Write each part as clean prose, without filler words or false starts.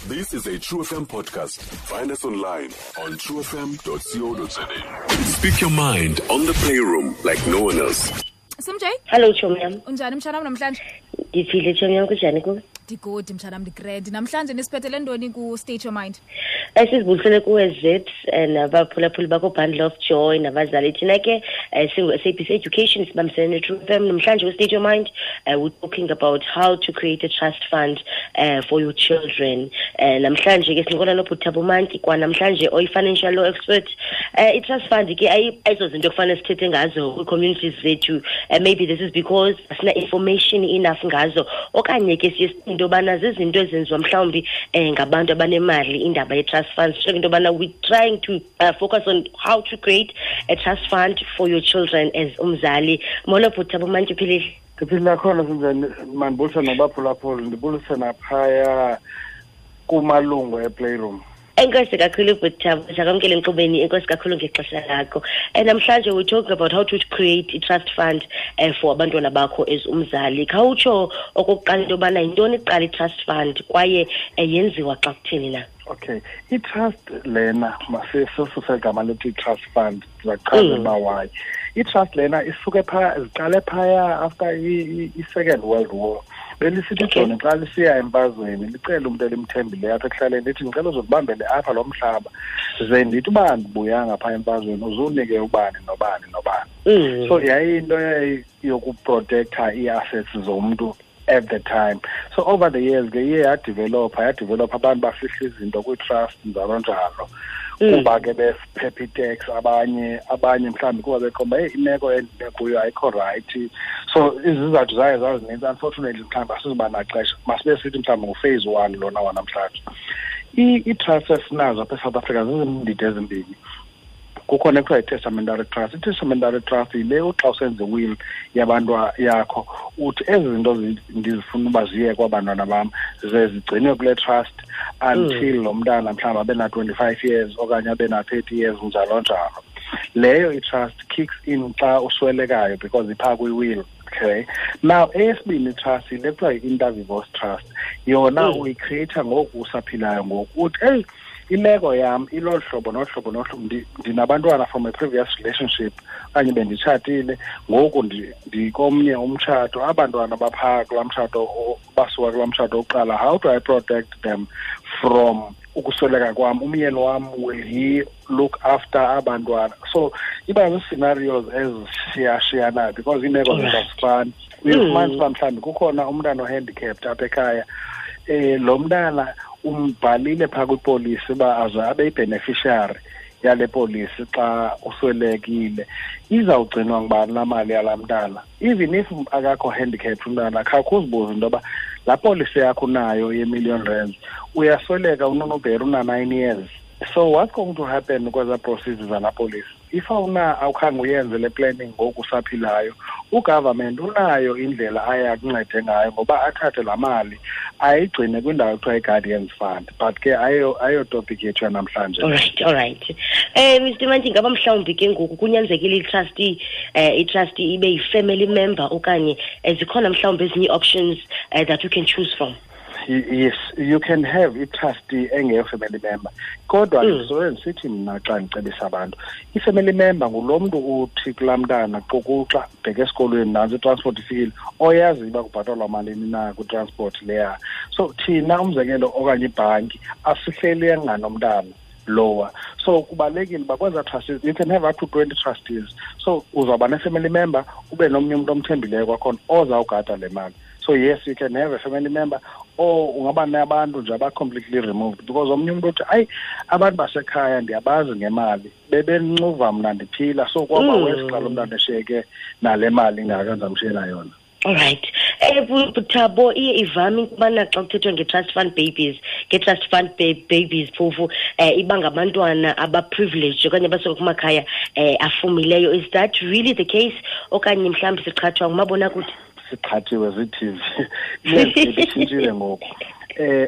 This is a True FM podcast. Find us online on truefm.co.za. Speak your mind on the Playroom like no one else. Simj. Hello, chomi yam. Unjani, mtshanam, namhlanje? Ndiphile, chomi yam, kunjani kuwe? Ndi-good, mtshanam, ndi-grand. Namhlanje nisiphethele ntoni ku-State Your Mind? Sizibulisele kuwe, Zips, nabaphulaphuli bakho, Bundle of Joy, nabazali. Thina ke singu-SABC Education, sibambisene ne-True FM. Namhlanje ku-State Your Mind, we're talking about how to create a trust fund for your children. Namhlanje ke sincokola noBhuti Mantyi, kwanamhlanje oyi-financial law expert. I-trust fund ke ayizozinto ekufanele sithethe ngazo kwii-communities zethu. Maybe this is because asina information enough ngazo, okanye ke siye sicinge into yobana zizinto ezenziwa mhlawumbi ngabantu abanemali, indaba ye-trust funds. Sho into yobana we're trying to focus on how to create a trust fund for your children as umzali. Molo, Bhuti Mantyi, uphilile? Ndiphilile khona, sinjani? Mandibulise nabaphulaphuli, ndibulise naphaya kumalungu e-Playroom. Enkosi kakhulu, Bhuti, sakwamkele enkqubeni. Enkosi kakhulu ngexesha lakho. And namhlanje we're talking about how to create a trust fund for abantwana bakho as umzali. Khawutsho okokuqala into yobana yintoni kuqala i-trust fund, kwaye yenziwa xa kutheni na? Okay, i-trust lena, masisuse igama lethi i-trust fund, ndizachaza uba why. I-trust lena isuke phaya, ziqale phaya after i-Second World War. Belisithi ijoni xa lisiya emfazweni licele umntu elimthembileyo apha ekuhlaleni, lithi, "Ndicela uzokubambele apha lo mhlaba, ze ndithi uba ndibuyanga phaa emfazweni uzunike ubani nobani nobani." So yayiyinto yokuprotektha ii-assets zomntu at the time. So over the years ke iye yadevelopha, yadevelopha, abantu bafihla izinto kwii-trust, njalo njalo, kuba ke besiphepha i-tax, abanye mhlawumbi kuba beqonda, "Heyi, imeko endime kuyo ayikho right." So izizathu zayo zazininzi. Unfortunately mhlawumbi asizuba naxesha, masibe sithi mhlawumbi ngu-phase one lona wanamhlanje. Ii-trust esinazo apha eSouth Africa zizindidi ezimbini. Kukhona ekuthiwa yi-testamentary trust. I-testamentary trust yile uxa usenza i-will yabantu yakho, uthi ezi zinto ndizifuna uba ziye kwabantwana bam, ze zigcinwe kule trust until lo mntana mhlawumbi abe na-25 years okanye abe na-30 years, njalo njalo. Leyo i-trust kicks in xa uswelekayo because iphaa kwi-will. Okay, now eyesibini i-trust yile kuthiwa yi-inter vivos trust. Yona uyicreata ngoku usaphilayo. Ngoku uthi, "Eyi, imeko yam ilolu hlobo nohlobo nohlobo, ndinabantwana from a previous relationship okanye benditshatile, ngoku ndikomnye umtshato, abantwana baphaa kulaa mtshato, basuka kulaa mtshato wokuqala. How do I protect them from ukusweleka kwam? Umyeni wam, will he look after abantwana?" So iba zii-scenarios ezishiyashiyanayo because iimeko zethu azifani. Uyofumanisa uba mhlawumbi kukhona umntana o-handicapped apha ekhaya, lo mntana umbhalile phaa kwipolisi uba aze abe yi-beneficiary yale polisi xa uswelekile. Izawugcinwa ngubani laa mali yalaa mntana? Even if akakho handicapped umntana, khawukhe uzibuze into yoba laa polisi yakho unayo ye-million rands, uyasweleka unonobheri una-9 years, so what's going to happen kwezaa proceeds zalaa polisi if awuna awukhange uyenze le planning ngoku usaphilayo? U-government unayo indlela aye akuncede ngayo ngoba athathe laa mali ayigcine kwindawo ekuthiwa i-guardians fund, but ke ayo topic yethu yanamhlanje. All right. Mr Mantyi, ngaba mhlawumbi ke ngoku kunyanzekile i-trustee ibe yi-family member, okanye zikhona mhlawumbi ezinye ii-options that you can choose from? Yes, you can have i-trustee engeyo-family member, kodwa ndisobe ndisithi mna xa ndicebisa abantu, i-family member ngulo mntu uthi kulaa mntana, "Xukuxa, bheka esikolweni, nantsi i-transport ifikile," oyaziyo uba kubhatalwa malini na kwi-transport leya. So thina, umzekelo, okanye ibhanki, asihleli enganomntana lowa. So kubalulekile uba kwezaa trustees, you can have up to 20 trustees, so uzawuba ne-family member, ube nomnye umntu omthembileyo kwakhona ozawugada le mali. So yes, you can have a family member or ungaba nabantu nje aba-completely removed, because omnye umntu uthi, "Ayi, abantu basekhaya ndiyabazi ngemali, bebencuva mna ndiphila, so kwaba worse xa lo mntana eshiyeke nale mali ingaka ndizamshiyela yona." All right. Thabo, iye ivame ukubana xa kuthethwa nge-trust fund babies, nge-trust fund babies phofu iba ngabantwana aba-privileged okanye abasuka kumakhaya afumileyo. Is that really the case, okanye mhlawumbi siqhathwa ngumabonakude? Siqhathiwe zii-TV. I-landscape itshintshile ngoku.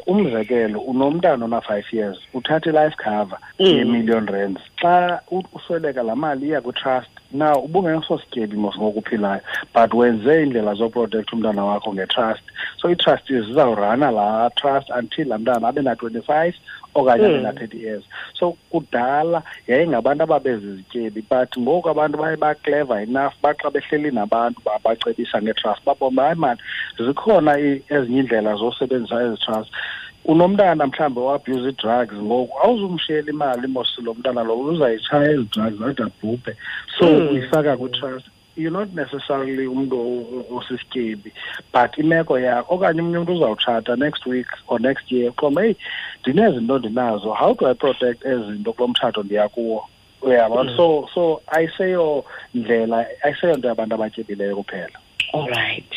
Umzekelo, unomntana ona-5 years, uthatha i-life cover ye-million rands. Xa usweleka, laa mali iya kwi-trust. Now ubungesosityebi mos ngoku uphilayo, but wenze iindlela zoprotect umntana wakho nge-trust. So ii-trustees zizawurana laa trust until laa mntana abe na-25 okanye abe na-30 years. So kudala yayingabantu ababezizityebi, but ngoku abantu baye ba-clever enough, baxa behleli nabantu babacebisa nge-trust, babona hayi mani, zikhona ezinye iindlela zosebenzisa ezi trust. Unomntana mhlawumbi o-abuse ii-drugs, ngoku awuzumshiyela imali mos lo mntana lo uzayitshaya ezi drugs ade abhubhe. So uyifaka kwi-trust. You're not necessarily umntu osisityebi, but imeko yakho, okanye omnye umntu uzawutshata next week or next year, uqonda heyi, ndinezinto ndinazo, how do I protect ezi zinto kulo mtshato ndiya kuwo? Uyabona? So ayiseyo ndlela, ayiseyonto yabantu abatyebileyo kuphela. All right.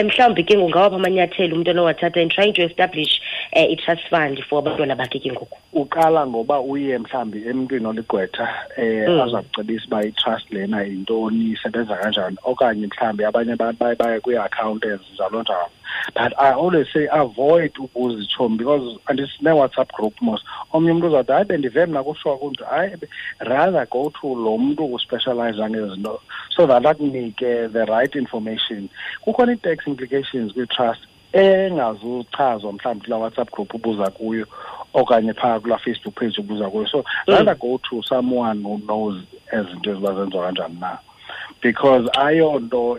Mhlawumbi ke ngungawaphi amanyathelo umntu onowathatha in trying to establish i-trust fund for abantwana bakhe ke ngoku? Uqala ngoba uye mhlawumbi emntwini oligqwetha, aza kucebisa uba i-trust lena yintoni, isebenza kanjani, okanye mhlawumbi abanye abantu baye baye kwii-accountants, njalo njalo. But I always say avoid ubuza itshomi, because andisine-WhatsApp group mos. Omnye umntu uzawuthi hayi, bendive mna kushiwa kunje. Hayi, rather go to lo mntu uspecialize ngezinto so that akunike the right information. Kukhona ii-tax implications kwi-trust engazuchazwa mhlawumbi kulaa WhatsApp group ubuza kuyo okanye phaa kulaa Facebook page ubuza kuyo. So rather go to someone who knows ezinto eziba zenziwa kanjani na, because ayonto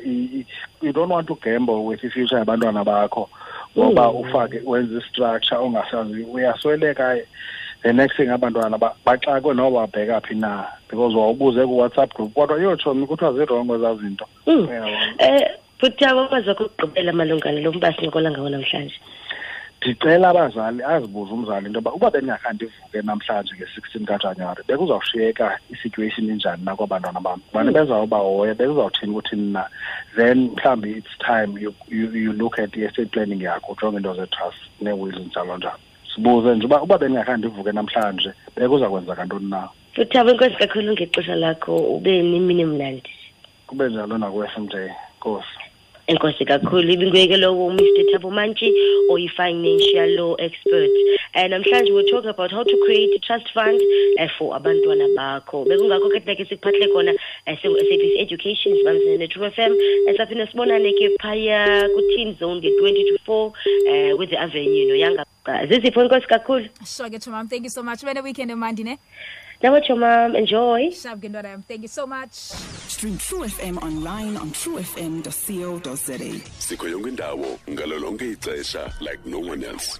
you don't want to gamble with i-future yabantwana bakho ngoba ufake wenze i-structure ongasazi, uyasweleka, the next thing abantwana baxakwe noba babheka phi na, because wawubuze ku-WhatsApp group kodwa yotshomi kuthiwa zirongo ezaa zinto. Uyabona? Futhi amazwi akho okugqibela malunga nalo mba sincokola ngawo namhlanje? Ndicela abazali azibuze umzali into yoba uba bendingakhange ndivuke namhlanje nge-16 kaJanuwari, bekuzawushiyeka i-situation injani na kwabantwana bam? Ubani bezawubahoya, bekuzawuthini kuthini na? Then mhlawumbi it's time you look at i-estate planning yakho, ujonge into ze-trust nee-wills njalo njalo. Sibuze nje uba bendingakhange ndivuke namhlanje, bekuza kwenzeka ntoni na? Futhi enkosi kakhulu ngexesha lakho, ube nemini emnandi. Kube njalo naku-S M J. Nkosi. Enkosi kakhulu. Ibinguye ke lowo uMr Thabo Mantyi, oyi-financial law expert. Namhlanje we're talking about how to create a trust fund for abantwana bakho. Bekungakho ke thina ke sikuphathele khona, singu-SABC Education, sibambisene ne-True FM. Saphinde sibonane ke phaya ku-Teen Zone nge-twenty to 4, with the Avenue noYanga. Zizipho, enkosi kakhulu. Sure ke, Chomam. Thank you so much. Ube ne-weekend emandi, ne? Nawe, Chomam. Enjoy. Sharp ke, ntwana yam. Thank you so much. Stream True FM online on truefm.co.za. Sikho yonke indawo ngalo lonke ixesha like no one else.